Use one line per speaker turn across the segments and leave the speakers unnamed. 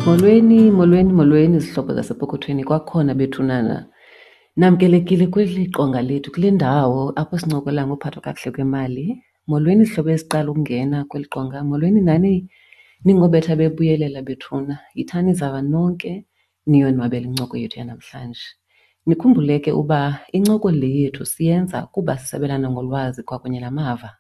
Molweni, molweni, molweni zihlobo zasepokothweni kwakhona bethunana. Namkelekile kweli qonga lethu kule ndawo apho sincokola ngophathwa kakuhle kwemali. Molweni zihlobo eziqala ukungena kweli qonga, molweni nani ningobetha bebuyelela bethuna. Yithani zava nonke niyonwabele incoko yethu yanamhlanje. Nikhumbule ke uba incoko le yethu siyenza kuba sisabelana ngolwazi kwakunye namava.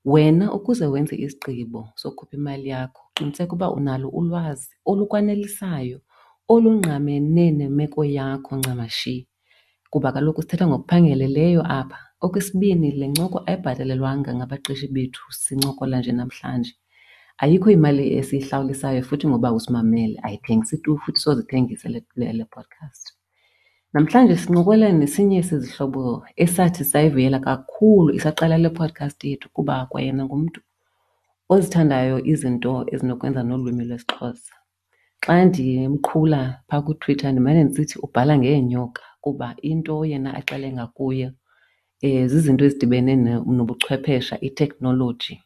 Wena ukuze wenze isigqibo sokukhupha imali yakho, qiniseka uba unalo ulwazi olukwanelisayo olungqamene nemeko yakho ncamashi, kuba kaloku sithetha ngokuphangeleleyo apha. Okwesibini, le ncoko ayibhatalelwanga ngabaqeshi bethu sincokola nje namhlanje. Ayikho imali esiyihlawulisayo futhi ngoba usimamele, ayithengisi tu futhi soze ithengise le podcast. Namhlanje sincokola nesinye sezihlobo esathi sayivuyela kakhulu isaqala le podcast yethu kuba kwayena ngumntu ozithandayo izinto ezinokwenza nolwimi lwesiXhosa. Xa ndimqhula phaa kuTwitter ndimane ndisithi ubhala ngeenyoka kuba into yena axele ngakuyo zizinto ezidibene nobuchwephesha, iteknoloji,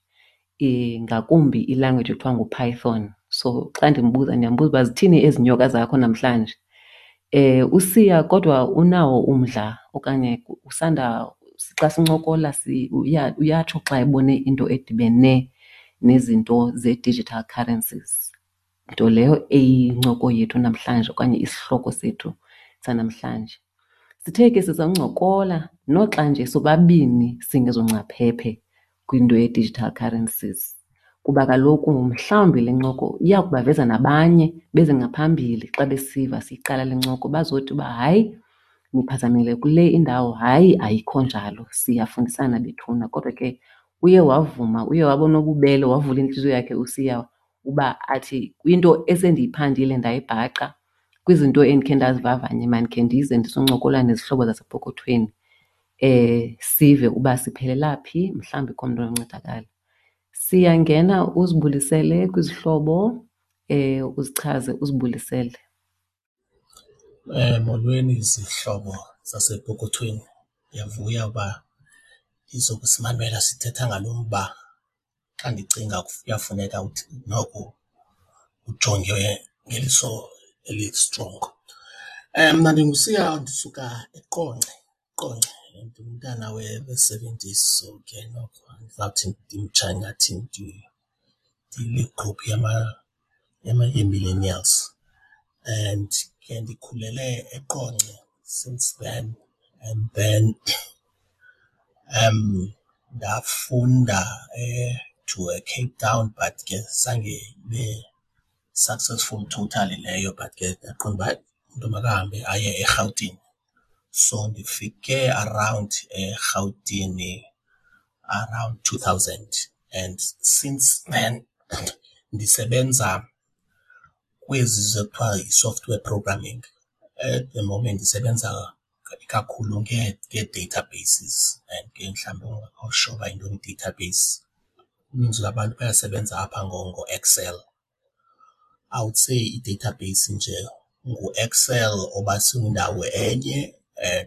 ngakumbi ilanguage ekuthiwa nguPython. So xa ndimbuza ndiyambuza uba zithini ezi nyoka zakho namhlanje. USiya kodwa unawo umdla okanye usanda xa sincokola uyatsho xa ebone into edibene nezinto ze-digital currencies, nto leyo eyincoko yethu namhlanje okanye isihloko sethu sanamhlanje. Sithe ke sizawuncokola noxa nje sobabini singezongcaphephe kwinto ye-digital currencies kuba kaloku mhlawumbi le ncoko iya kubaveza nabanye beze ngaphambili xa besiva siyiqala le ncoko bazothi uba hayi niphazamile kule indawo, hayi ayikho njalo, siyafundisana bethuna. Kodwa ke uye wavuma, uye waba nobubele wavula intliziyo yakhe uSiya uba athi kwinto esendiyiphandile ndayibhaca kwizinto endikhe ndazivavanya mandikhe ndize ndizoncokola nezihlobo zasepokothweni sive uba siphelela phi, mhlawumbi ikhona umntu ononcedakala. Siyangena uzibulisele kwizihlobo uzichaze uzibulisele.
Molweni zihlobo zasepokothweni, ndiyavuya uba nizokusimamela sithetha ngalo mba. Xa ndicinga kuyafuneka uthi noko ujonge ngeliso elistrongo. Mna ndinguSiya ndisuka eQonce, Qonce. Ndingumntana we-seventies so ke noko andizawuthi ndimtsha ingathi ndikwigruphu yee-millennials. And ke ndikhulele eQonce since then and then ndafunda to eCape Town but ke zange ibe successful totally leyo but ke ndaqonda uba hayi umntu makahambe aye eRhawutini. So ndifike around eRhawutini around 2000 and since then ndisebenza kwezi kuthiwa yi-software programming. At the moment ndisebenza kakhulu ngee-databases and ke mhlawumbi ungekho sure uba yintoni i-database, uninzi lwabantu bayasebenza apha ngoExcel. I would say i-database nje nguExcel obasindawo enye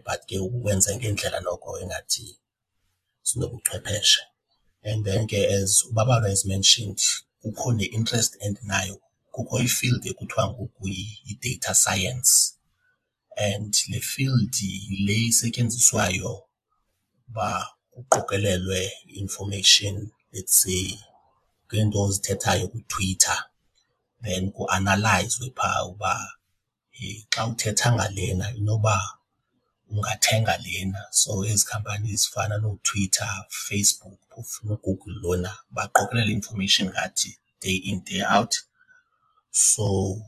but ke uwenze ngendlela noko engathi sinobuchwepheshe. And then ke as uBabalwa has mentioned, kukho ne-interest endinayo, kukho i-field ekuthiwa ngoku yi-data science and le field yile isetyenziswayo uba kuqokelelwe i-information, let's say ngeento ozithethayo kuTwitter then kuanalayizwe phaa uba xa uthetha ngalena inoba ungathenga lena. So ezi khampani zifana nooTwitter, Facebook phofu noGoogle lona baqokelela i-information ngathi day in day out. So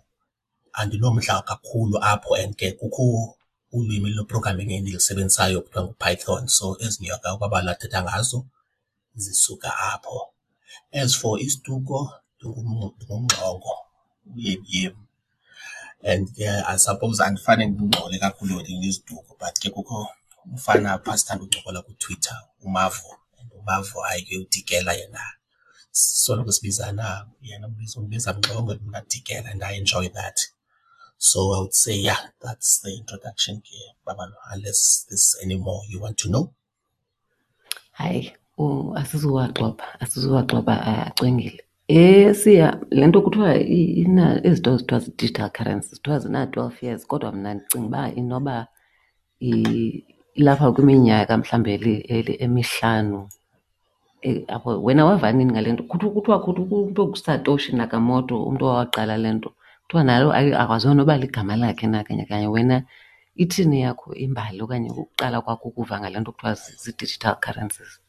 andinomdla kakhulu apho and ke kukho ulwimi lwe-programming endilusebenzisayo kuthiwa nguPython. So ezi nyoka uBabalwa athetha ngazo zisuka apho. As for isiduko ndinguMngxongo, uYemyem. And ke I suppose andifane ndingxole kakhulu ngeziduko but ke kukho umfana apha sithanda uncokola kuTwitter uMavo, and uMavo hayi ke uDikela yena. Soloko sibizana, yena undibiza Mngxongo mna Dikela and I enjoy that. So I would say yeah, that's the introduction ke Babalwa, unless there's any more you want to know.
Hayi, asizuwaxoxa, asizuwaxoxa acwengile. Siya, le nto kuthiwa ezi zinto zithiwa zii-digital currencies kuthiwa zina-12 years kodwa mna ndicinga uba inoba ilapha kwiminyaka mhlawumbi emihlanu apho. Wena wava nini ngale nto? Kuthiwa umntu onguSatoshi Nakamoto umntu owaqala le nto, kuthiwa nalo akwaziwa noba ligama lakhe na kanye kanye. Wena ithini eyakho imbali okanye ukuqala kwakho ukuva ngale nto kuthiwa zii-digital currencies?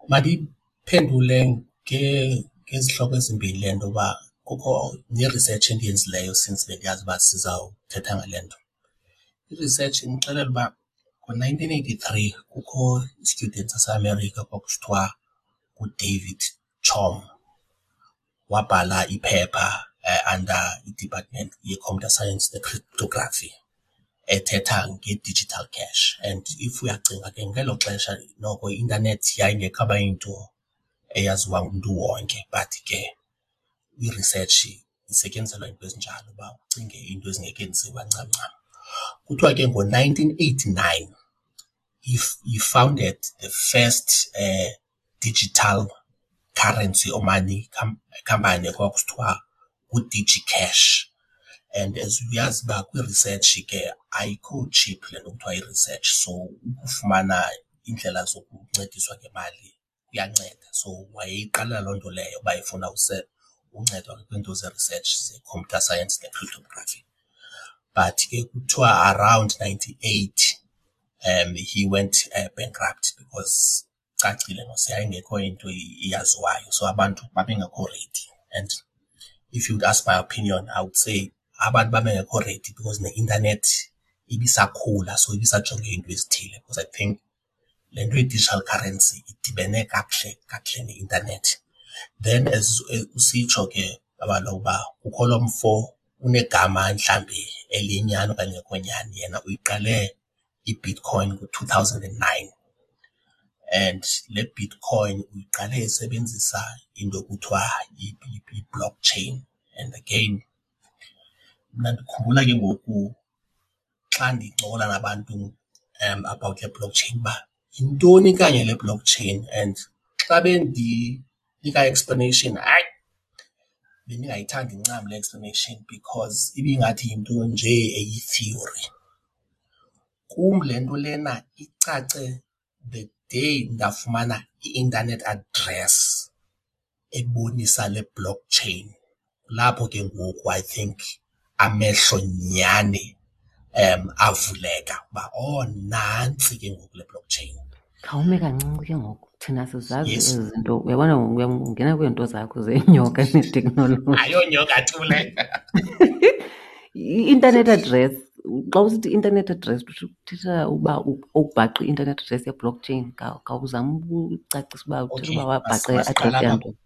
Mandiyiphendule ngezihloko ezimbini le nto uba kukho ne-research endiyenzileyo since bendiyazi uba sizawuthetha ngale nto. I-research indixelela uba ngo-nineteen eighty-three kukho i-student saseAmerica kwakusithiwa nguDavid Chaum, wabhala iphepha under i-department ye-computer science ne-cryptography ethetha nge-digital cash. And if uyacinga ke ngelo xesha noko i-intanethi yayingekabi yinto eyaziwa ngumntu wonke, but ke i-research isetyenziselwa iinto ezinjalo uba ucinge iinto ezingekenziwa ncam ncam. Kuthiwa ke ngo-nineteen eighty-nine he founded the first digital currency or money company ekwakusithiwa nguDigiCash. And as uyazi uba kwi-research ke ayikho cheap le nto kuthiwa yi-research, so ukufumana iindlela zokuncediswa ngemali kuyanceda. So wayeyiqalela loo nto leyo uba efuna uncedwa kwiinto ze-research ze-computer science ne-cryptography. But ke kuthiwa around ninety-eight he went bankrupt because icacile mos yayingekho into iyaziwayo, so abantu babengekho ready. And if you would ask my opinion, I would say abantu babengekho ready because neintanethi ibisakhula, so ibisajonge iinto ezithile. Because I think le nto ye-digital currency idibene kakuhle kakuhle neintanethi. Then as usitsho ke kaloku uba kukho lo mfo unegama mhlawumbi eliyinyani okanye elingekho nyani, yena uyiqale iBitcoin ngo-two thousand and nine. And le Bitcoin uyiqale esebenzisa into ekuthiwa yi-blockchain. And again mna ndikhumbula ke ngoku xa ndincokola nabantu about le blockchain uba yintoni kanye le blockchain, and xa bendinika i-explanation, hayi, bendingayithandi ncam le explanation because ibingathi yinto nje eyi-theory. Kum le nto lena icace the day ndafumana i-internet address ebonisa le blockchain. Kulapho ke ngoku I think amehlo nyhani avuleka uba oh nantsi ke ngoku le blockchain.
Khawume kancinci ke ngoku, thina sizazi ezi zinto. Uyabona ngoku ungena kwiinto zakho zeenyoka neteknoloji.
Ayonyoka tu le.
I-internet address, xa usithi i-internet address uthetha uba ubhaqe i-internet address ye-blockchain. Khawuzame ukucacisa uba uthetha uba wabhaqa i-address yantoni.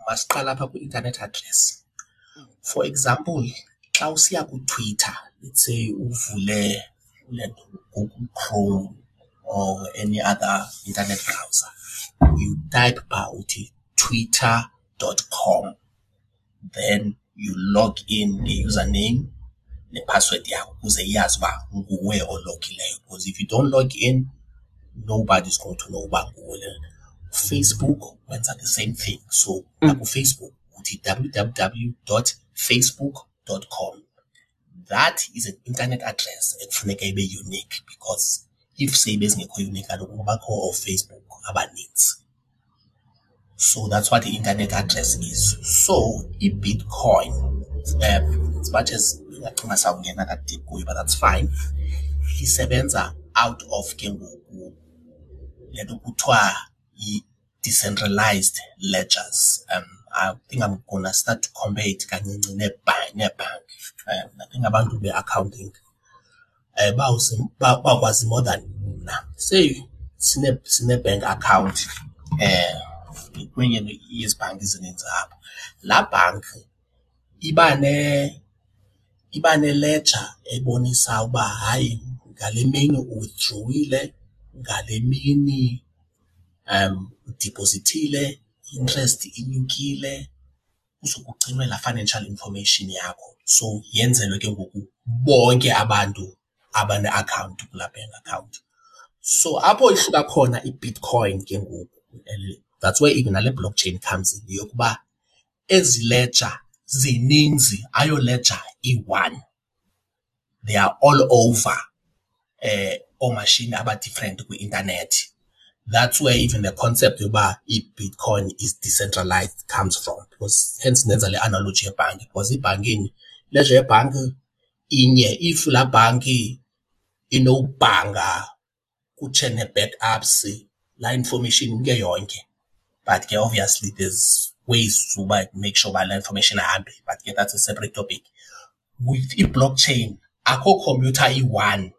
Masiqale apha kwi-internet address. For example, xa usiya kuTwitter, let's say uvule le nto Google Chrome or any other internet browser, you type phaa uthi twitter.com, then you log in nge-username nephasiwedi yakho ukuze iyazi uba nguwe ologileyo. Because if you don't log in, nobody's going to know uba nguwe lona. Facebook wenza the same thing. So nakuFacebook uthi www.facebook.com. That is an internet address ekufuneka ibe unique, because if seyibe zingekho unique kaloku kubakho ooFacebook abanintsi. So that's what the internet address is. So iBitcoin, as much as ndingacinga sawungena ka-deep kuyo, but that's fine, isebenza out of ke ngoku le nto kuthiwa yi-decentralized ledgers. I think I'm gonna start to compare it kancinci neebhanki. I think abantu be-accounting bakwazi more than mna. Say sine-bank account kwenye yezi bhanki zininzi apha. Laa bhanki iba ne-ledger ebonisa uba hayi ngale mini uwithdrowile, ngale mini udiphozithile, i-interest inyukile, kuzokugcinwa laa financial information yakho. So yenzelwe ke ngoku bonke abantu abane-akhawunti kulaa bank account. So apho ihluka khona iBitcoin ke ngoku That's where even nale blockchain comes in, yokuba ezi ledger zininzi, ayo ledger iyi-one. They are all over oomashini aba-different kwi-intanethi. That's where even the concept yoba iBitcoin is decentralized comes from, because hence ndenza le analogy yebhanki, because ibhankini, ileja yebhanki inye. If laa bhanki inobhanga kutshe nee-backups, laa information imke yonke. But ke obviously there's ways uba make sure uba laa information ayihambi, but ke that's a separate topic. With i-blockchain akho khompyutha iyi-one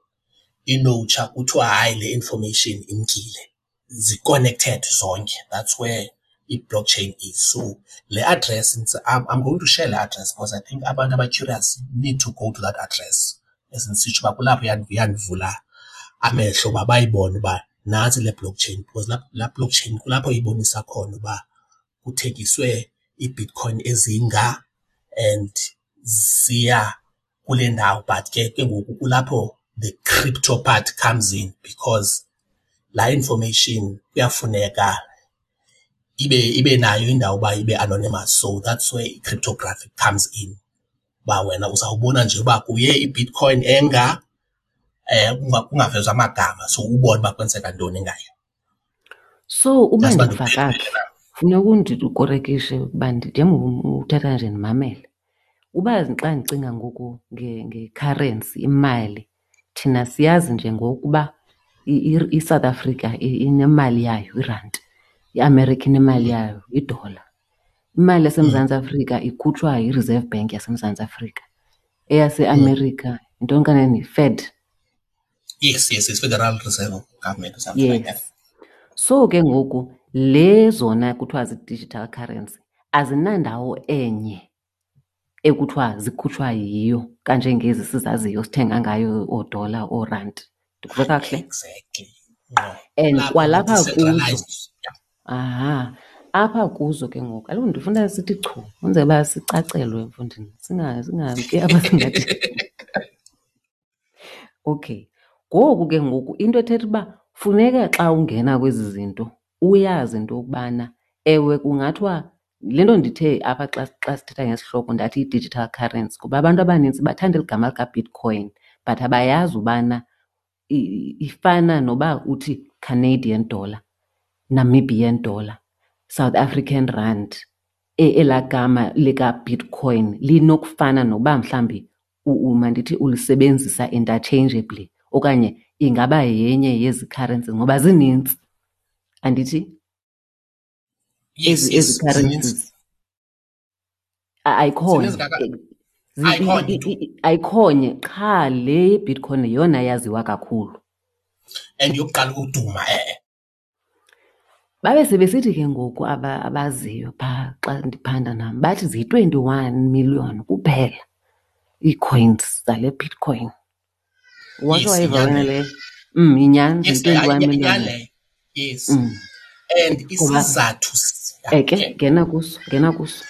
inotsha kuthiwa hayi le information imkile, zi-connected zonke. That's where i-blockchain is. So le address, I'm going to share le address because I think abantu aba-curious need to go to that address. As ndisitsho uba kulapho yandivula amehlo uba bayibone uba nantsi le blockchain, because laa blockchain kulapho ibonisa khona uba kuthengiswe iiBitcoin ezinga and ziya kule ndawo. But ke ngoku kulapho the crypto part comes in, because laa information kuyafuneka ibe nayo indawo uba ibe anonymous. So that's where i-cryptography comes in, uba wena uzawubona nje uba kuye iBitcoin enga, kungavezwa amagama, so ubone uba kwenzeka ntoni ngayo.
So uba ndiva kakuhle, funeka undikorekishe ukuba njengoba uthetha nje ndimamele. Uba xa ndicinga ngoku nge-currency, imali, thina siyazi nje ngokuba iSouth Africa inemali yayo, irandi, iAmerica inemali yayo, idola. Imali yaseMzantsi Afrika ikhutshwa yiReserve Bank yaseMzantsi Afrika. EyaseAmerica, yintoni kanene, yiFed?
Yes, Federal Reserve Government or something like that.
Yes. So ke ngoku le zona kuthiwa zii-digital currency azinandawo enye ekuthiwa zikhutshwa yiyo kanjengezi sizaziyo sithenga ngayo oodola, oorandi. Ndikuve kakuhle?
Exactly. Ngqo.
And
Kulapho
kwalapha kuzo,
decentralized. Yeah.
aha, apha kuzo ke ngoku, kaloku ndifuna sithi chu, kwenzela uba sicacelwe mfondini, singamki apha singathi. Okay. Ngoku ke ngoku into ethetha uba funeka xa ungena kwezi zinto uyazi into yokubana ewe kungathiwa le nto ndithe apha xa sithetha ngesihloko ndathi i-digital currency, kuba abantu abanintsi bathanda eli gama likaBitcoin but abayazi ubana ifana noba uthi Canadian dollar, Namibian dollar, South African rand. Elaa gama likaBitcoin linokufana noba mhlawumbi mandithi ulisebenzisa interchangeably okanye ingaba yenye yezi currencies ngoba zinintsi, andithi?
Yes,
Ezi
yes, zininzi.
currencies. Ayikhonye.
Zininzi kaka- Ayikhonye tu.
Ayikhonye qha le Bitcoin yeyona yaziwa kakhulu.
And yokuqala ukuduma, e-e.
Babe sebesithi ke ngoku abaziyo phaa xa ndiphanda nam, bathi ziyi-21 million kuphela ii-coins zale Bitcoin. Wake
Yes,
wayiva
inyani
wena
leyo.
leyo? Inyani,
Yes,
ziyi-21 million.
inyani leyo. Yes. And
Ngoba
isizathu yeah,
ke,
okay.
ngena kuso, ngena kuso.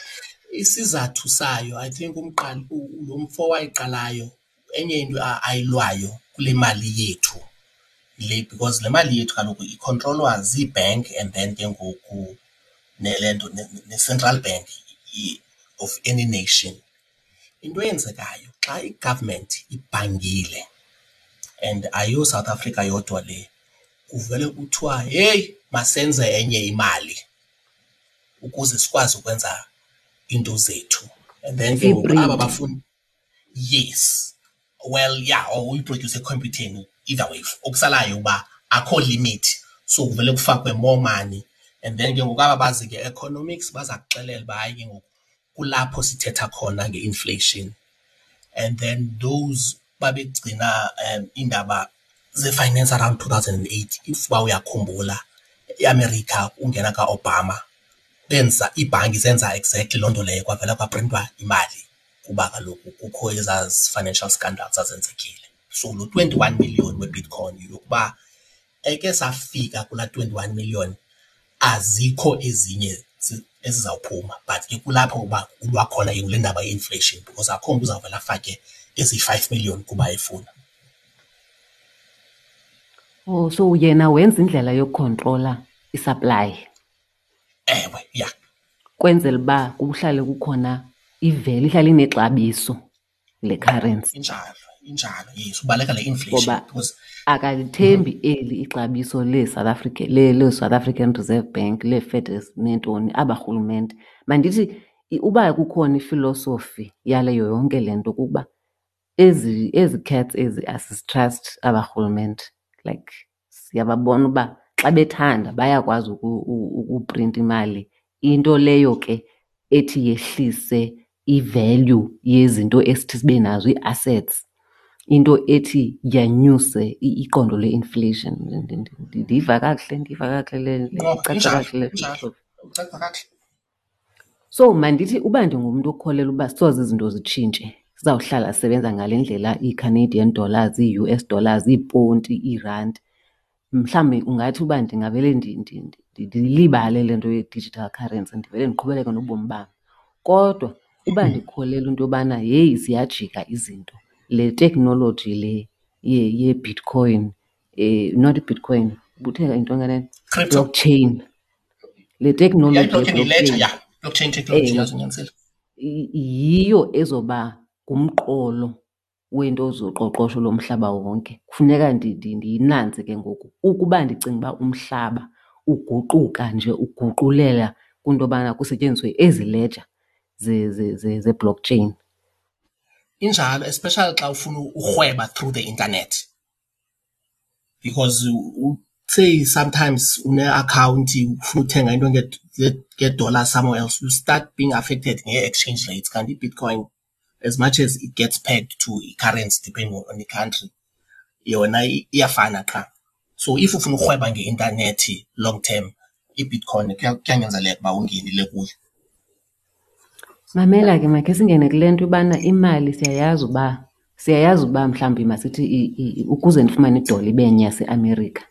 Isizathu sayo, I think lo mfo wayiqalayo, enye into ayilwayo kule mali yethu le, because le mali yethu kaloku ikhontrolwa zii-bank and then ke ngoku nele nto, ne-central bank of any nation. Into eyenzekayo xa i-government ibhangile, and ayiyo South Africa yodwa le, kuvele kuthiwa heyi masenze enye imali ukuze sikwazi ukwenza iinto zethu. And then ke ngoku aba
Siyiprinte.
bafuni, yes, well yeah, or uyiprodyuse ekhompyutheni, either way, okusalayo uba akho limit, so kuvele kufakwe more money. And then ke ngoku aba bazi ke economics baza kuxelela uba hayi ke ngoku kulapho sithetha khona nge-inflation. And then those babegcina iindaba ze-finance around 2008, if uba uyakhumbula, iAmerica ungena kaObama, benza iibhanki zenza exactly loo nto leyo, kwavela kwaprintwa imali kuba kaloku kukho ezaa financial scandals zazenzekile. So lo 21 million weBitcoin yokuba eke safika kulaa 21 million, azikho ezinye ezizawuphuma, but ke kulapho uba kulwa khona ke kule ndaba ye-inflation, because akho mntu uzawuvela afake ezi-5 million kuba efuna.
Oh, so yena wenza indlela yokukhontrola i-supply.
Ewe, ya.
Kwenzela uba kuhlale kukhona i-value, ihlale inexabiso le currency.
Injalo, injalo, yes, ubaleka le inflation.
Ngoba akalithembi eli ixabiso leSouth Africa, le-South African Reserve Bank, lee-Fed neentoni, aba rhulumente. Mandithi uba kukhona ifilosofi yaleyo yonke le nto kukuba ezi cats ezi asizitrust aba rhulumente. Like siyababona uba xa bethanda bayakwazi ukuprinta imali, into leyo ke ethi yehlise i-value yezinto esithi sibe nazo, ii-assets, into ethi yanyuse iqondo le-inflation. Ndiyiva kakuhle, ndiyiva kakuhle le, le,
No,
icaca
injalo,
kakuhle le
injalo.
filosofi.
Icaca kakuhle.
So mandithi uba ndingumntu okholelwa uba soze izinto zitshintshe, sizawuhlala sisebenza ngale ndlela, ii-Canadian dollars, ii-U S dollars, iiponti, iirandi, mhlawumbi ungathi uba ndingavele ndilibale le nto ye-digital currency, ndivele ndiqhubeleke nobomi bam. Kodwa uba ndikholelwa into yobana heyi ziyajika izinto, le teknoloji le ye-Bitcoin, not iBitcoin, ubuthe yintoni kanene?
Crypto.
Blockchain. Le teknoloji
Yeah, i-blockchain
ye-blockchain.
yi-ledger, yeah. Blockchain technology,
Ewe.
yazinyanisile.
Yiyo ezoba ngumqolo wento zoqoqosho lomhlaba wonke. Kufuneka ndiyinanze ke ngoku ukuba ndicinga uba umhlaba uguquka nje uguqulela kwinto yobana kusetyenziswe ezi ledger ze-blockchain.
Injalo, especially xa ufuna urhweba through the internet, because say sometimes une-akhawunti ufuna uthenga into nge-dollar somewhere else, you start being affected nge-exchange rates. Kanti iBitcoin, as much as it gets pegged to i-currency depending on the country, yona iyafana qha. So if ufuna urhweba ngeintanethi long term, iBitcoin kuyanyanzeleka uba ungenile kuyo.
Mamela ke, makhe singene kule nto ubana imali siyayazi uba mhlawumbi masithi ukuze ndifumane idola ibe nye yaseAmerica,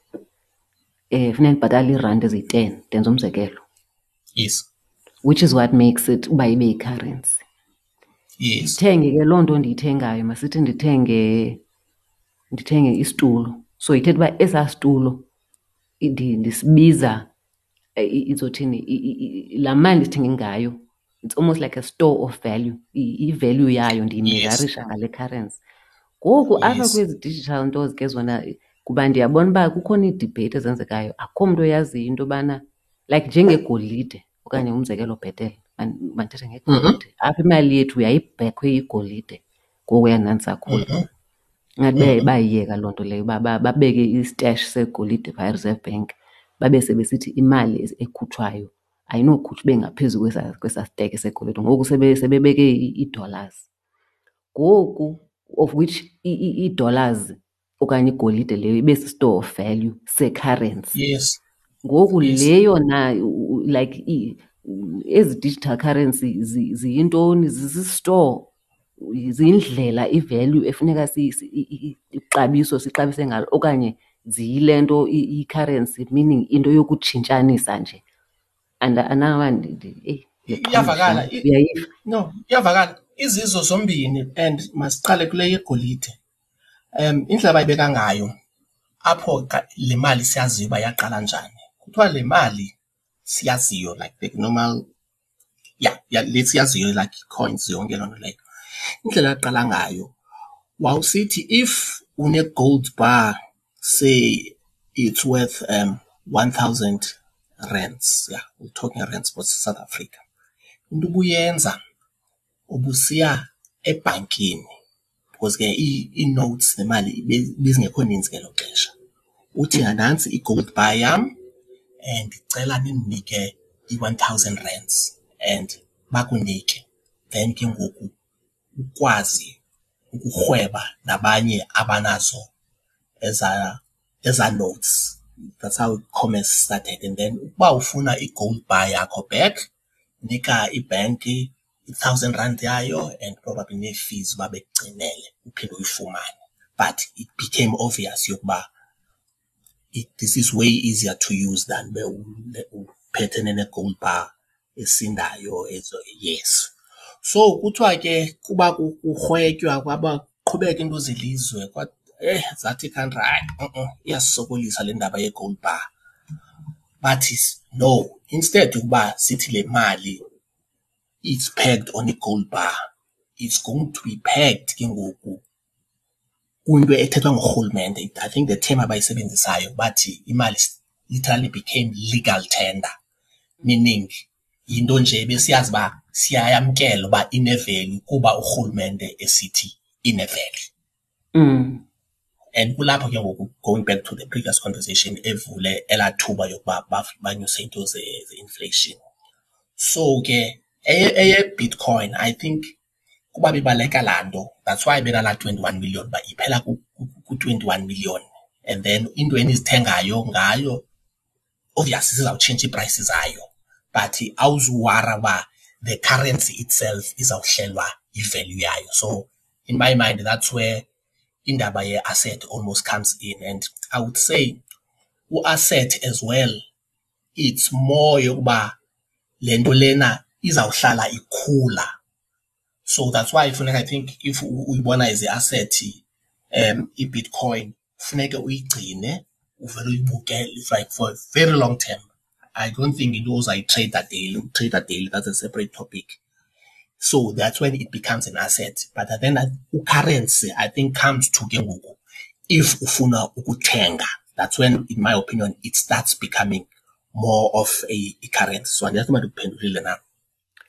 funeka ndibhatale iirandi eziyi-10, ndenza umzekelo. Which is what makes it uba ibe yi-currency. Ndithenge ke loo nto ndiyithengayo, masithi ndithenge isitulo. So ithetha uba esaa situlo ndisibiza, izothini, laa mali ndisithenge ngayo, it's almost like a store of value. I-value yayo ndiyimezarisha ngale currency. Ngoku apha kwezi digital nto ke zona, kuba ndiyabona uba kukhona iidibheyiti ezenzekayo, akukho mntu oyaziyo into yobana like njengegolide okanye umzekelo bhetele, mandithethe ngegolide. Apha imali yethu yayibhekhwe igolide ngokuya ndandisakhula. Ingathi bayiyeka loo nto leyo, babeke istash segolide phaa eReserve Bank, babe sebesithi imali ekhutshwayo ayinokhutshwa ibe ngaphezu kwesa steke segolide. Ngoku sebebeke ii-dollars. Ngoku of which ii-dollars okanye igolide leyo ibe si-store of value se-currency. Ngoku le yona, like ezi digital currency ziyintoni? Zisi-store, ziyindlela i-value efuneka ixabiso sixabise ngalo, okanye ziyile nto i-currency, meaning into yokutshintshanisa nje. And andazi eyi, le
Iyavakala,
xesha, uyayiva?
No, iyavakala. Izizo zombini, and masiqale kule yegolide. Indlela abayibeka ngayo apho le mali siyaziyo uba yaqala njani. Kuthiwa le mali siyaziyo, like the normal, yeah, yeah, le siyaziyo, like coins yonke loo nto leyo. Indlela yaqala ngayo, wawusithi if une-gold bar, say it's worth 1,000 rands, yeah, we're talking rands for South Africa. Into ubuyenza, ubusiya ebhankini, because ke ii-notes nemali ibizingekho ninzi ngelo xesha. Uthi nantsi i-gold bar yam and ndicela nindinike i-1,000 rands, and bakunike. Then ke ngoku ukwazi ukurhweba nabanye abanazo eza notes. That's how commerce started. And then ukuba ufuna i-gold bar yakho back, nika ibhenki i-1,000 rand yayo and probably nee-fees uba bekugcinele uphinde uyifumane. But it became obvious yokuba this is way easier to use than ube uphethene ne-gold bar esindayo ezo, yes. So kuthiwa ke kuba kurhwetywa kwaba qhubeka into zelizwe, zathi i-country, hayi, iyasisokolisa le ndaba ye-gold bar. Bathi no, Instead ukuba sithi le mali it's pegged on i-gold bar, it's going to be pegged ke ngoku kwinto ethethwa ngurhulumente. I think the term abayisebenzisayo bathi imali literally became legal tender, meaning yinto nje besiyazi uba siyayamkela uba ine-value kuba urhulumente esithi ine-value. And kulapho ke ngoku, going back to the previous conversation, evule elaa thuba yokuba banyuse into ze-inflation. So ke eye-Bitcoin, I think kuba bebaleka laa nto, that's why benalaa 21 million, uba iphela ku-21 million, and then into enizithengayo ngayo obviously zizawutshintsha ii-prices zayo, but awuzuwara uba the currency itself izawuhlelwa i-value yayo. So in my mind, that's where indaba ye-asset almost comes in. And I would say u-asset as well, it's more yokuba le nto lena izawuhlala ikhula. So that's why funeka, I think, if uyibona as i-asset, i-Bitcoin, funeke uyigcine, uvele uyibukele like for a very long term. I don't think into uzayitreyida daily. Ukutreyida daily, that's a separate topic. So that's when it becomes an asset. But then currency, I think, comes to ke ngoku if ufuna ukuthenga. That's when, in my opinion, it starts becoming more of a currency. So andiyazi uba ndikuphendulile na.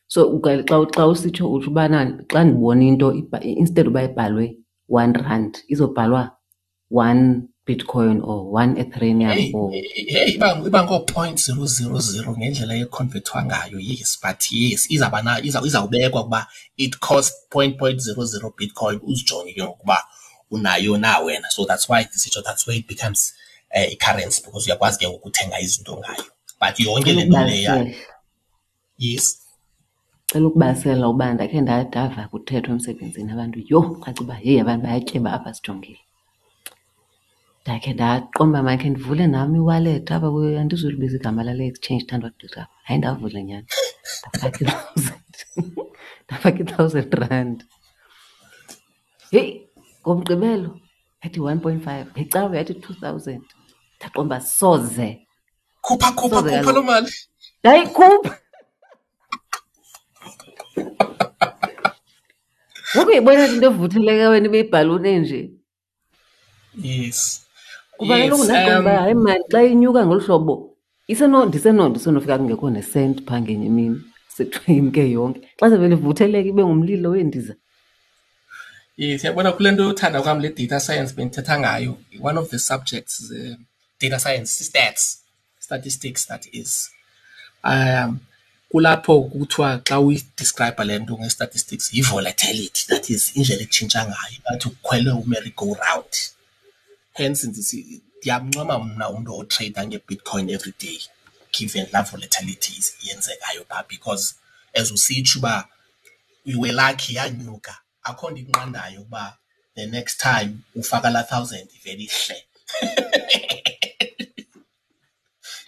So xa usitsho utsho ubana xa ndibona into instead uba ibhalwe R1, izobhalwa 1 Bitcoin or 1 Ethereum
Hey,
or
hey, iba ngoo-0.000 ngendlela ekhonvethwa ngayo, yes, but yes, izawuba na izawubekwa ukuba it costs 0.000 Bitcoin, uzijonge ke ngokuba unayo na wena. So that's why ndisitsho that's where it becomes i-currency, because uyakwazi ke ngoku ukuthenga izinto ngayo. But yonke
Cela
le nto leya,
ukubalisela.
Yes.
Cela ukubalisela uba ndakhe ndava kuthethwa emsebenzini abantu, yho, caca uba heyi abantu bayatyeba apha sijongile. Ndakhe ndaqonda uba makhe ndivule nam i-wallet apha, andizulibiza igama lale exchange ithandwa gqitha apha. Hayi, ndavula nyhani, ndafaka i-thousand, ndafaka i-R1,000. Heyi, ngoMgqibelo yathi 1.5, ngeCawe yathi 2,000. Ndaqonda uba soze.
Khupha, khupha,
Soze
khupha
kaloku.
loo mali.
Ndayikhupha. Ngoku uyayibona into evutheleka wena ibe yibhaluni enje. Kuba kaloku ndaqonda uba hayi mani, xa inyuka ngolu hlobo ndisenofika kungekho nesenti phaa ngenye imini, sekuthiwa imke yonke. Xa sevele ivutheleka ibe ngumlilo weendiza.
Yes, yabona kule nto yothanda kwam le data science bendithetha ngayo, one of the subjects, data science, stats, statistics that is. Kulapho kuthiwa xa uyi-describe le nto nge-statistics yi-volatility, that is indlela etshintsha ngayo, ingathi ukhwele u-merry go round. Hence ndithi ndiyamncoma mna umntu otreyida ngeBitcoin every day, given laa volatility yenzekayo phaa, because as usitsho uba you were lucky yanyuka, akho nto ikunqandayo ukuba the next time ufaka laa thousand ivele ihle.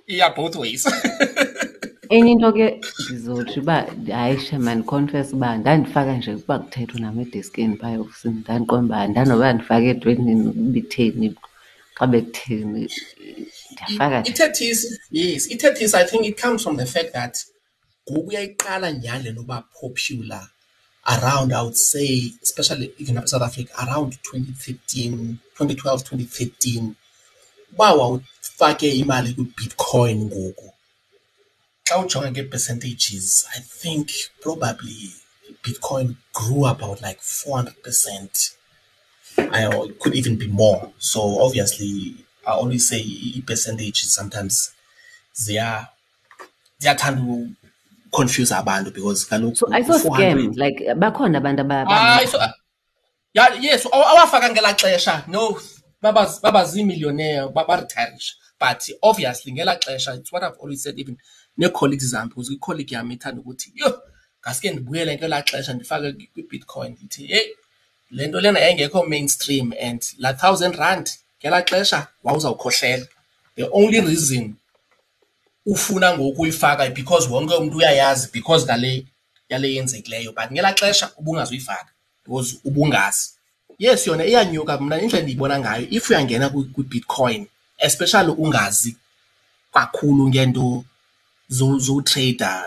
Iya both ways.
Enye into ke ndizotsho uba hayi shem, mandikhonfese uba ndandifaka nje ukuba kuthethwa nam edeskini phaa eofisini, ndandiqonda uba ndanoba ndifake entwenini ibitheni, xa bekutheni, ndiyafaka nje.
Ithethisi, yes, ithethisi, I think it comes from the fact that ngoku uyayiqala nyhani le nto uba popular around, I would say, especially even apha eSouth Africa, around 2013, 2012, 2013. Uba wawufake imali kwiBitcoin ngoku, xa ujonga ngee-percentages, I think probably Bitcoin grew about like 400%. It could even be more. So obviously, I always say ii-percentages sometimes ziyathanda uku-confuse abantu because kaloku
So ayiso
u-400
scam, like bakhona abantu
Hayi, so, yeah, yes, awafaka ngelaa xesha, no, baba zii-millionaire, baretirisha. But obviously ngelaa xesha, it's what I've always said, even nee-colleagues zam, because i-colleague yam ithanda ukuthi, yho, ngaske ndibuyele ngelaa xesha ndifake kwiBitcoin. Ndithi, heyi, le nto lena yayingekho mainstream and laa R1,000 ngelaa xesha wawuzawukhohlela. The only reason ufuna ngoku uyifaka because wonke umntu uyayazi because ngale yale yenzekileyo, but ngelaa xesha ubungazuyifaka because ubungazi. Yes, yona iyanyuka. Mna indlela endiyibona ngayo, if uyangena kwiBitcoin, especially ungazi kakhulu ngento zotreyida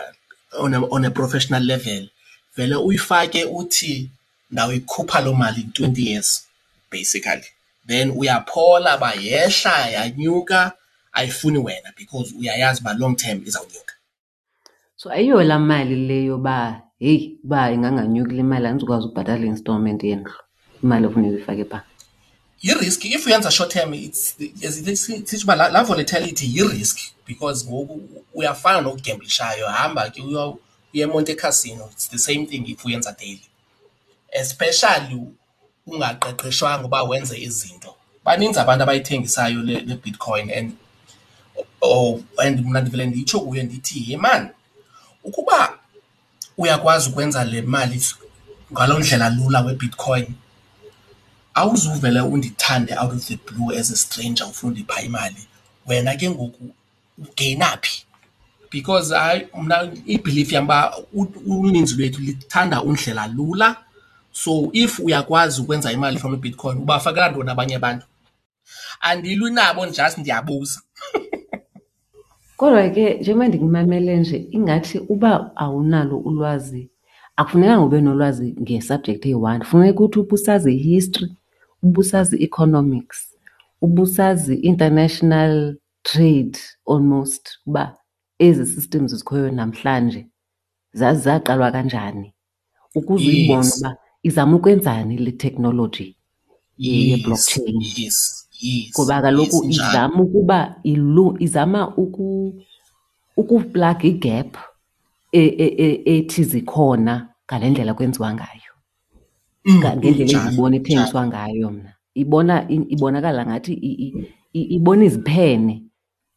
on a professional level, vele uyifake uthi ndawuyikhupha loo mali in 20 years basically. Then uyaphola uba yehla yanyuka, ayifuni wena because uyayazi uba long term izawunyuka.
So ayiyo laa mali le yoba heyi, uba inganganyuki le mali andizukwazi ukubhatala i-installment yendlu, imali ekufuneka uyifake phaa.
Yi-risk if uyenza short term. It's sitsho uba laa volatility yi-risk because ngoku uyafana nokugemblishayo, hamba ke uye eMonte Casino. It's the same thing if uyenza daily, especially ungaqeqeshwanga uba wenze izinto. Baninzi abantu abayithengisayo le Bitcoin and oh, and mna ndivele nditsho kuye ndithi, yhe mani, ukuba uyakwazi ukwenza le mali ngaloo ndlela lula weBitcoin, awuzuvele undithande out of the blue as a stranger ufuna undipha imali. Wena ke ngoku ugeyina phi? Because hayi, mna i-belief yam uba uninzi lwethu lithanda undlela lula. So if uyakwazi ukwenza imali from iBitcoin, ubafakela ntoni abanye abantu? Andilwi nabo, just ndiyabuza.
Kodwa ke njengoba ndikumamele nje, ingathi uba awunalo ulwazi, akufunekanga ube nolwazi nge-subject eyi-one. Funeka uthi ubusazi i-history, ubusazi i-economics, ubusazi international trade almost, uba ezi systems zikhoyo namhlanje zaqalwa kanjani, ukuze uyibone uba izama ukwenzani le technology ye-blockchain. Ngoba kaloku izama ukuba izama ukuplaga i-gap ethi zikhona ngale ndlela kwenziwa ngayo. Ngendlela endiyibona ithengiswa ngayo mna. Ibona ibonakala ngathi ibona iziphene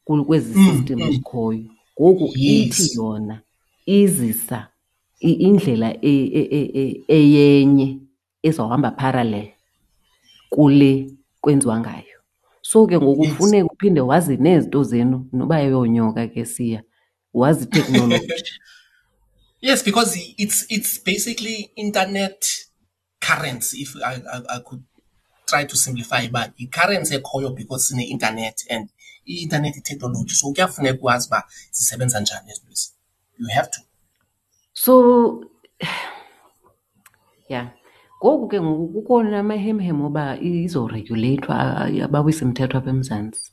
kwezi system zikhoyo. Ngoku ithi yona izisa indlela eyenye ezawuhamba parallel kule kwenziwa ngayo. So ke ngoku funeka uphinde wazi nezinto zenu noba ayonyoka ke siya, wazi iteknoloji.
Yes, because it's basically internet currency, if I could try to simplify uba yi-currency ekhoyo because sine-internet and i-internet i-technology, so kuyafuneka ukwazi uba zisebenza njani ezi zinto. You have to.
So yeah, ngoku ke ngoku kukho namahemhem oba izoreguleyithwa, abawisa imithetho apha eMzantsi,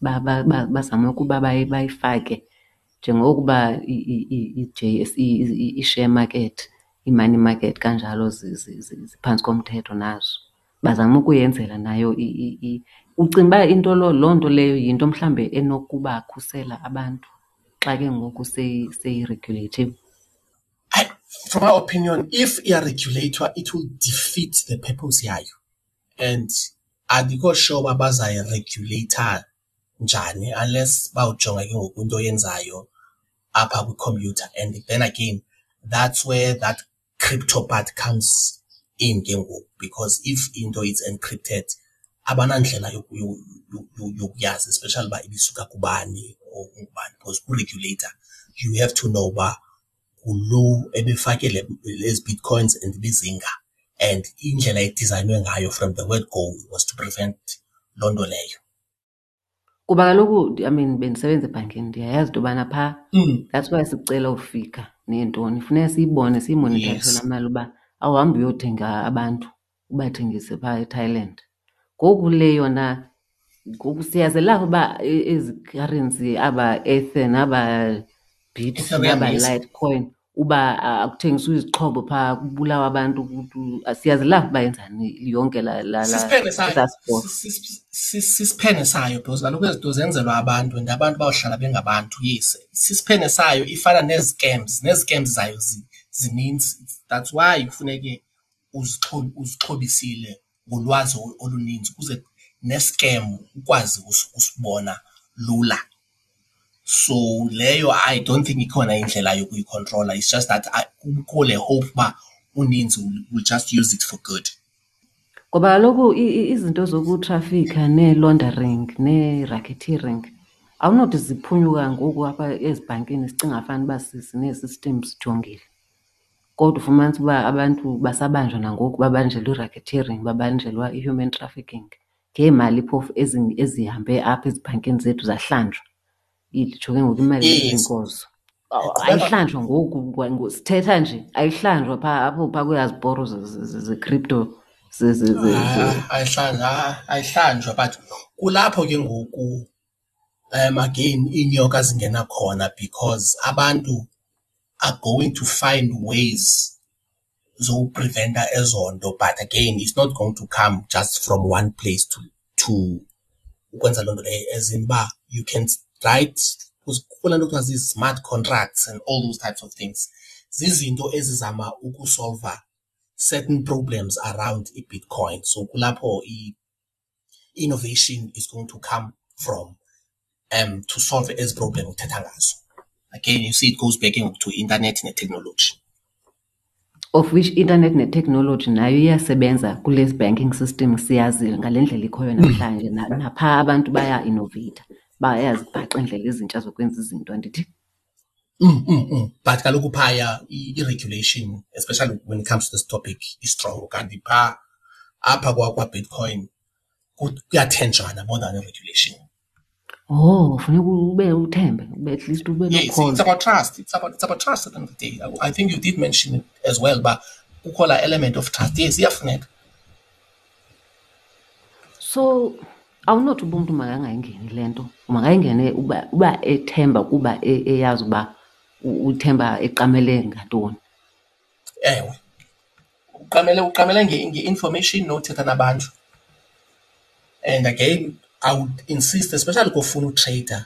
bazame ukuba bayifake njengokuba i-J_S_E, i-share market, i-money market kanjalo ziphantsi komthetho nazo. Bazama ukuyenzela nayo. Ucinga uba into loo nto leyo yinto mhlawumbe enokubakhusela abantu xa ke ngoku seyireguleyithiwe?
From my opinion, if iyareguleyithwa, it will defeat the purpose yayo and andikho sure uba bazayireguleyitha njani unless bawujonga ke ngoku into oyenzayo apha kwikhompyutha. And then again, that's where that crypto part comes in ke ngoku, because if into is encrypted, abanandlela yokuyazi, especially uba ibisuka kubani or ungubani, because ku-regulator you have to know uba ngulo ebefake lezi bitcoins and ibizinga, and indlela edizayinwe ngayo from the word go was to prevent loo nto leyo.
Kuba kaloku, I mean, bendisebenza ebhankini, ndiyayazi into yobana phaa, that's why sikucela ufika neentoni, funeka siyibone, siyimonitharishe laa mali uba awuhambi uyothenga abantu ubathengise phaa eThailand. Ngoku le yona ngoku siyazelapha uba ezi currency, aba Ether naba Bit
Ethereum,
naba Litecoin, uba akuthengiswa izixhobo phaa kubulawa abantu, siyazelapha uba yenzani yonke laa
Sisiphene sayo.
Esaa sport.
Sisiphene sayo because kaloku ezi zinto zenzelwa abantu and abantu bawuhlala bengabantu. Yes, sisiphene sayo, ifana nezi-scams, nezi-scams zayo zininzi. That's why kufuneke uzixhobisile ngolwazi oluninzi ukuze ne-scam ukwazi usibona lula. So leyo I don't think ikhona indlela yokuyikhontrola. It's just that kukho le hope uba uninzi will just use it for good.
Ngoba kaloku izinto zokutrafikha nee-laundering nee-racketeering awunothi ziphunyuka ngoku apha ezibhankini sicinga fanuba sinee-systems sijongile. Kodwa ufumanise uba abantu basabanjwa nangoku, babanjelwa i-racketeering, babanjelwa i-human trafficking ngeemali phofu ezihambe apha ezibhankini zethu zahlanjwa. Nditsho ke ngoku imali ezinkozo. Ayihlanjwa ngoku sithetha nje, ayihlanjwa phaa apho phaa kwezaa ziporo ze-crypto.
Ayihlanjwa but kulapho ke ngoku again iinyoka zingena khona because abantu are going to find ways zokupreventa ezo nto. But again it's not going to come just from one place to ukwenza loo nto leyo, as in uba you can write kukho laa nto kuthiwa zii-smart contracts and all those types of things. Zizinto ezizama ukusolva certain problems around iBitcoin. So kulapho i-innovation is going to come from to solve ezi problem uthetha ngazo. Again, you see it goes back to internet ne-technology.
Of which internet ne-technology nayo iyasebenza kule banking system siyaziyo ngale ndlela ikhoyo namhlanje. Naphaa abantu baya-innovate, bayazibhaqa iindlela ezintsha zokwenza izinto, andithi?
But kaloku phaya i-regulation, especially when it comes to this topic, is strong. Kanti phaa apha kwaBitcoin kuyathenjwana more than i-regulation.
Oh, funeka ube uthembe, ube at least ube
Yes,
nokholo.
It's about trust. It's about trust at the end of the day. I think you did mention it as well, but kukho laa element of trust. Yes, iyafuneka.
So awunothi uba umntu makangayingeni le nto, makayingene uba ethemba kuba eyazi uba uthemba eqamele ngantoni.
Ewe, uqamele nge-information nothetha nabantu. And again, I would insist, especially kofuna utreyida,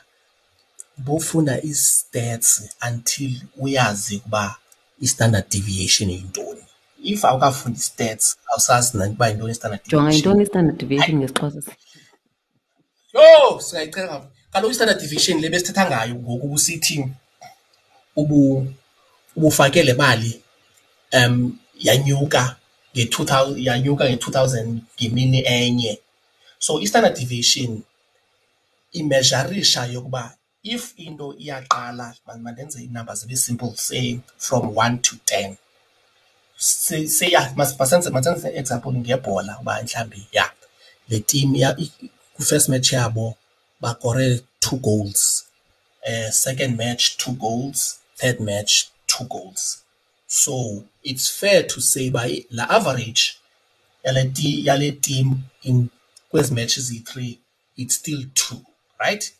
bofunda ii-stats until uyazi ukuba i-standard deviation yintoni. If awukafundi i-stats, awusazi nokuba yintoni i-standard
Jonga,
deviation.
yintoni i-standard deviation ngesiXhosa?
Yho, singayicela. Kaloku i-standard deviation le besithetha ngayo ngoku ubusithi ubufake le mali yanyuka nge-two yanyuka nge-2,000 ngemini enye. So i-standard deviation imezharisha yokuba if into iyaqala, mandenze iinamba zibe simple, say from 1 to 10. Say, say yeah, masenze example ngebhola uba mhlawumbi, yeah, le team ya, kwi-first match yabo bakore 2 goals. Second match 2 goals, third match 2 goals. So it's fair to say by la average yale team in kwezi matches ziyi-3, it's still 2, right?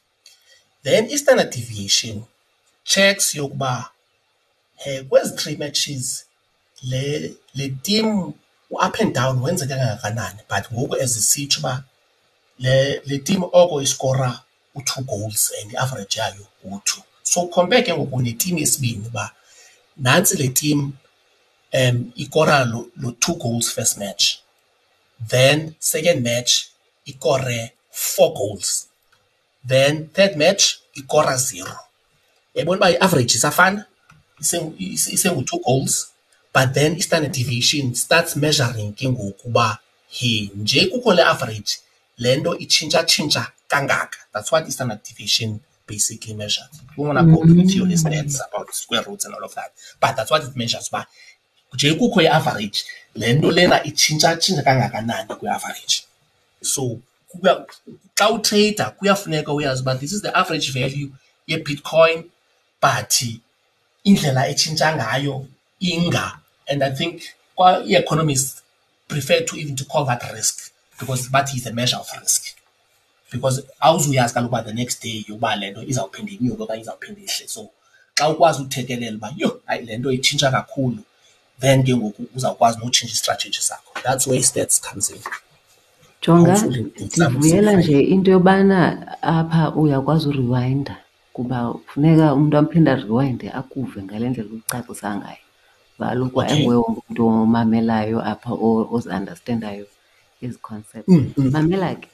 Then i-standard deviation checks yokuba kwezi 3 matches le team up and down wenzeke kangakanani, but ngoku as isitsho uba le team oko iskora u-2 goals and i-average yayo ngu-2. So compare ke ngoku ne-team yesibini uba nantsi le team ikora lo 2 goals first match, then second match ikore 4 goals, then third match ikora 0. Uyayibona uba i-average isafana, isengu-2 goals, but then i-standard deviation starts measuring ke ngoku uba he nje kukho le average, le nto itshintsha-tshintsha kangaka. That's what i-standard deviation basically measures. We want to go into your stats about square roots and all of that, but that's what it measures. Uba nje kukho i-average, le nto lena itshintsha-tshintsha kangakanani kwi-average. So xa utrader kuyafuneka uyazi uba this is the average value ye-Bitcoin, but indlela etshintsha ngayo inga. And I think i-economists prefer to even to call that risk, because that is a measure of risk. Because awuzuyazi kaloku uba the next day yokuba le nto izawuphinda inyuke okanye izawuphinda ihle. So xa ukwazi uthekelela uba yho, hayi le nto itshintsha kakhulu, then ke ngoku uzawukwazi notshintsha istrategy sakho. That's where stats comes in.
Jonga,
Hopefully ndizama
ndivuyela
usimplify.
nje into yobana apha uyakwazi urewinda, kuba kufuneka umntu aphinde arewinde akuve ngale ndlela ucacisa ngayo. Kuba kaloku ayinguwe wonke umntu omamelayo apha ozi-understandayo ezi concepts. Mamela ke,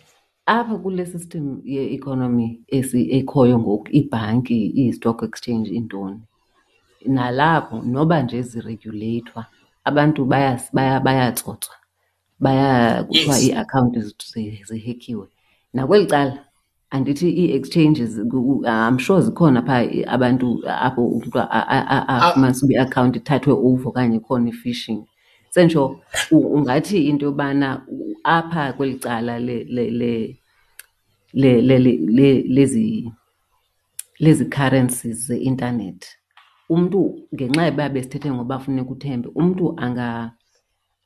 apha kule system ye-economy ekhoyo ngoku, iibhanki, ii-stock exchange, iintoni, nalapho noba nje zireguleyithwa, abantu bayatsotswa, kuthiwa ii-akhawunti zihekhiwe. Nakweli cala andithi ii-exchanges, I'm sure zikhona phaa abantu apho umntu afumanise uba iakhawunti ithathwe over okanye ikhona i-phishing. Sentsho ungathi into yobana apha kweli cala lezi currencies ze-intanethi Umntu ngenxa yoba besithethe ngoba funeka uthembe, umntu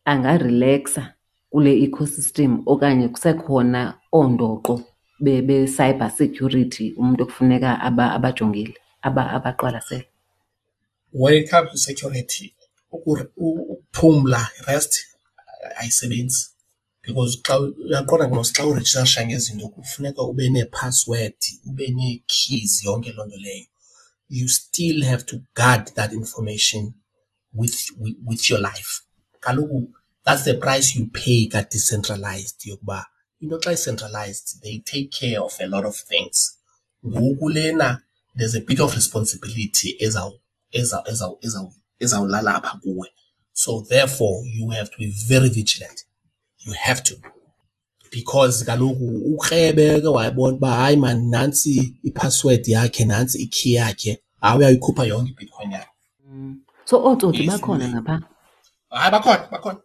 angarileksa kule ecosystem okanye kusekhona oondoqo be-cyber security umntu ekufuneka abajongile, abaqwalasele?
When it comes to security, ukuphumla, rest, ayisebenzi because xa uyaqonda mos xa urejistarisha ngezinto kufuneka ube neephasiwedi, ube nee-keys, yonke loo nto leyo. You still have to guard that information with your life. Kaloku that's the price you pay ka-decentralized, yokuba into xa i-centralized they take care of a lot of things. Ngoku lena there's a bit of responsibility ezawulala apha kuwe. So therefore you have to be very vigilant. You have to. Because kaloku ukrebe ke wayibona uba hayi man nantsi iphasiwedi yakhe, nantsi ikey yakhe, hayi uyayikhupha yonke iBitcoin yakhe.
So ootsotsi bakhona ngapha?
Hayi, bakhona, bakhona.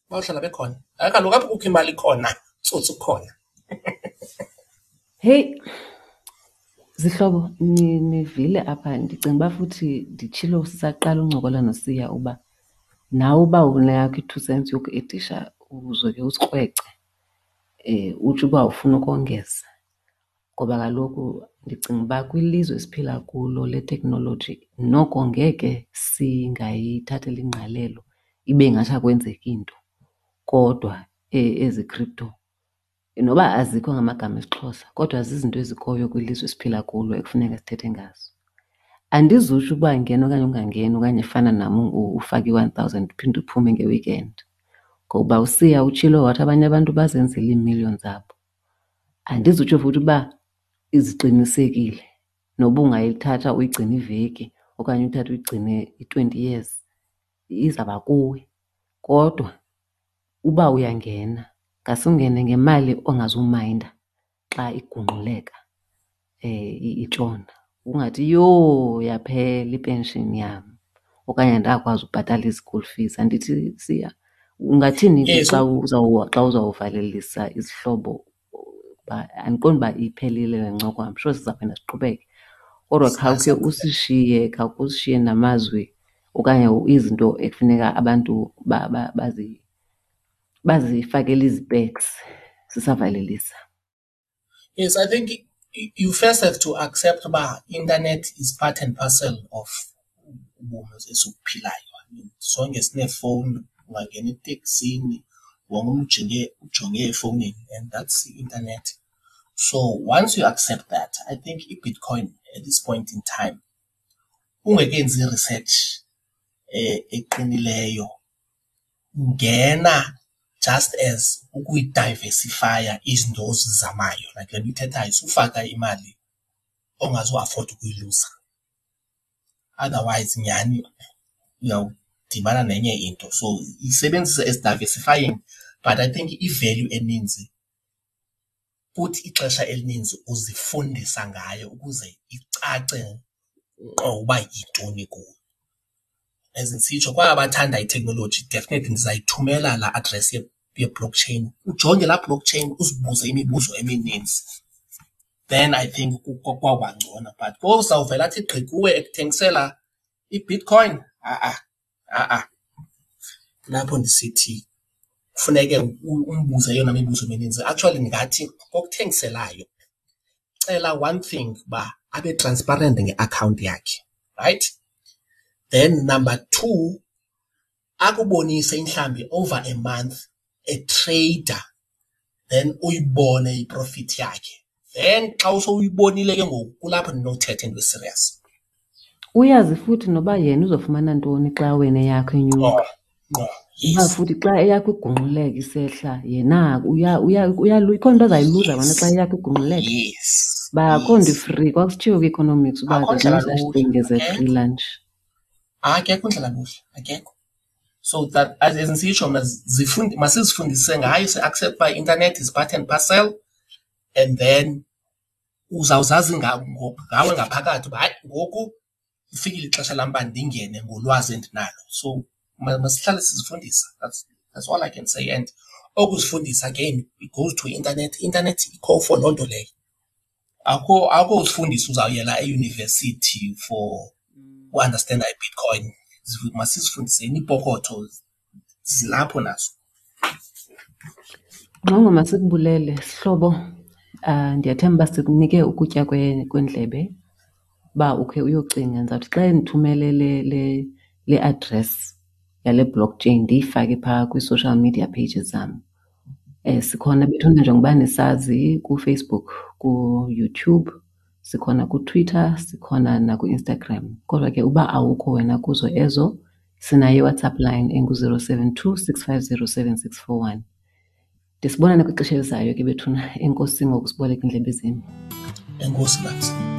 Bawuhlala bekhona. Hayi kaloku apho kukho imali khona, tsotsi ukhona.
Heyi, zihlobo, nivile apha. Ndicinga uba futhi nditshilo sisaqala uncokola noSiya uba nawe uba uneyakho i-2 cents yokuedisha uzoke usikrwece, utsho uba ufuna ukongeza. Ngoba kaloku ndicinga uba kwilizwe esiphila kulo leteknoloji noko ngeke singayithatheli ingqalelo ibe ngathi akwenzeki nto. Kodwa ezi crypto noba azikho ngamagama esiXhosa kodwa zizinto ezikhoyo kwilizwe esiphila kulo ekufuneka sithethe ngazo. Andizutsho uba ngena okanye ungangeni okanye fana nam ufake i-1,000 uphinde uphume nge-weekend. Ngoba uSiya utshilo wathi abanye abantu bazenzele iimillion zabo. Andizutsho futhi uba iziqinisekile noba ungayithatha uyigcine iveki okanye uyithathe uyigcine i-20 years izawuba kuwe. Kodwa uba uyangena ngase ungene ngemali ongazumayinda xa igungquleka, itshona. Ungathi yho yaphela ipenshini yam okanye andakwazi ubhatala i-school fees. Andithi Siya, ungathini ke xa uzawuvalelisa izihlobo? Uba andiqondi uba iphelile le ncoko, I'm sure sizawuphinda siqhubeke. Kodwa khawukhe usishiye, khawukhe usishiye namazwi okanye izinto ekufuneka abantu bazifakele izipeks sisavalelisa.
Yes, I think you first have to accept uba internet is part and parcel of ubomi esibuphilayo. I mean, sonke sineefowuni, ungangena eteksini wonke umntu ujonge efowunini, and that's the internet. So once you accept that, I think iBitcoin at this point in time, ungekenzi i-research eqinileyo, ngena just as ukuyidiversifya izinto ozizamayo. Like le nto uyithethayo, sufaka imali ongazuafforda ukuyiluza. Otherwise nyhani uyawudibana nenye into. So isebenzise as diversifying, but I think i-value eninzi futhi ixesha elininzi uzifundisa ngayo ukuze icace ngqo uba yintoni kuwe. As ndisitsho, kwaba bathanda iteknoloji definitely ndizayithumela laa address ye-blockchain. Ujonge laa blockchain uzibuze imibuzo emininzi. Then I think kwawuba ngcono. But kozawuvela athi gqi kuwe ekuthengisela iBitcoin, ha-a, ha-a. Kulapho ndisithi kufuneke umbuze eyona mibuzo emininzi. Actually ndingathi kokuthengiselayo cela one thing, uba abe transparent ngeakhawunti yakhe, right? Then number two, akubonise mhlawumbi over a month etreyida, then uyibone iprofit yakhe. Then xa usowuyibonile ke ngoku kulapho ndinothetha into eserious.
Uyazi futhi noba yena uzofumana ntoni xa wena eyakho inyuka.
Ngqo, ngqo, yes.
Uba futhi xa eyakho igungquleka isehla, yena ikhona into azayiluza wena xa eyakho igungquleka.
Yes.
Ba akho nto free, kwakusitshiwo kwi-economics uba
Akho
there's no
ndlela
such
lula,
thing as a
akekho.
free lunch.
Akekho ndlela lula, akekho. So that as ndisitsho mna, masizifundise ngayo, si-accept uba i-internet is part and parcel, and then uzawuzazi ngawe ngaphakathi uba hayi ngoku lifikile ixesha lam uba ndingene ngolwazi endinalo. So masihlale sizifundisa. That's all I can say. And okuzifundisa again, it goes to internet. Internet ikho for loo nto leyo. Akho uzifundisa uzawuyela eyunivesithi for uandastenda iBitcoin. Masizifundiseni iipokotho zilapho nazo.
Ngxongo, masikubulele sihlobo. Ndiyathemba uba sikunike ukutya kwendlebe uba ukhe uyocinga. Ndizawuthi xa endithumele le le le address yale blockchain ndiyifake phaa kwii-social media pages zam. Sikhona bethuna njengoba nisazi kuFacebook, kuYouTube, sikhona kuTwitter, sikhona nakuInstagram. Kodwa ke uba awukho wena kuzo ezo, sinayo iWhatsApp line engu-072 650 7641. Ndisibonane kwixesha elizayo ke bethuna. Enkosi ngokusiboleka iindlebe zenu.
Enkosi, Babs.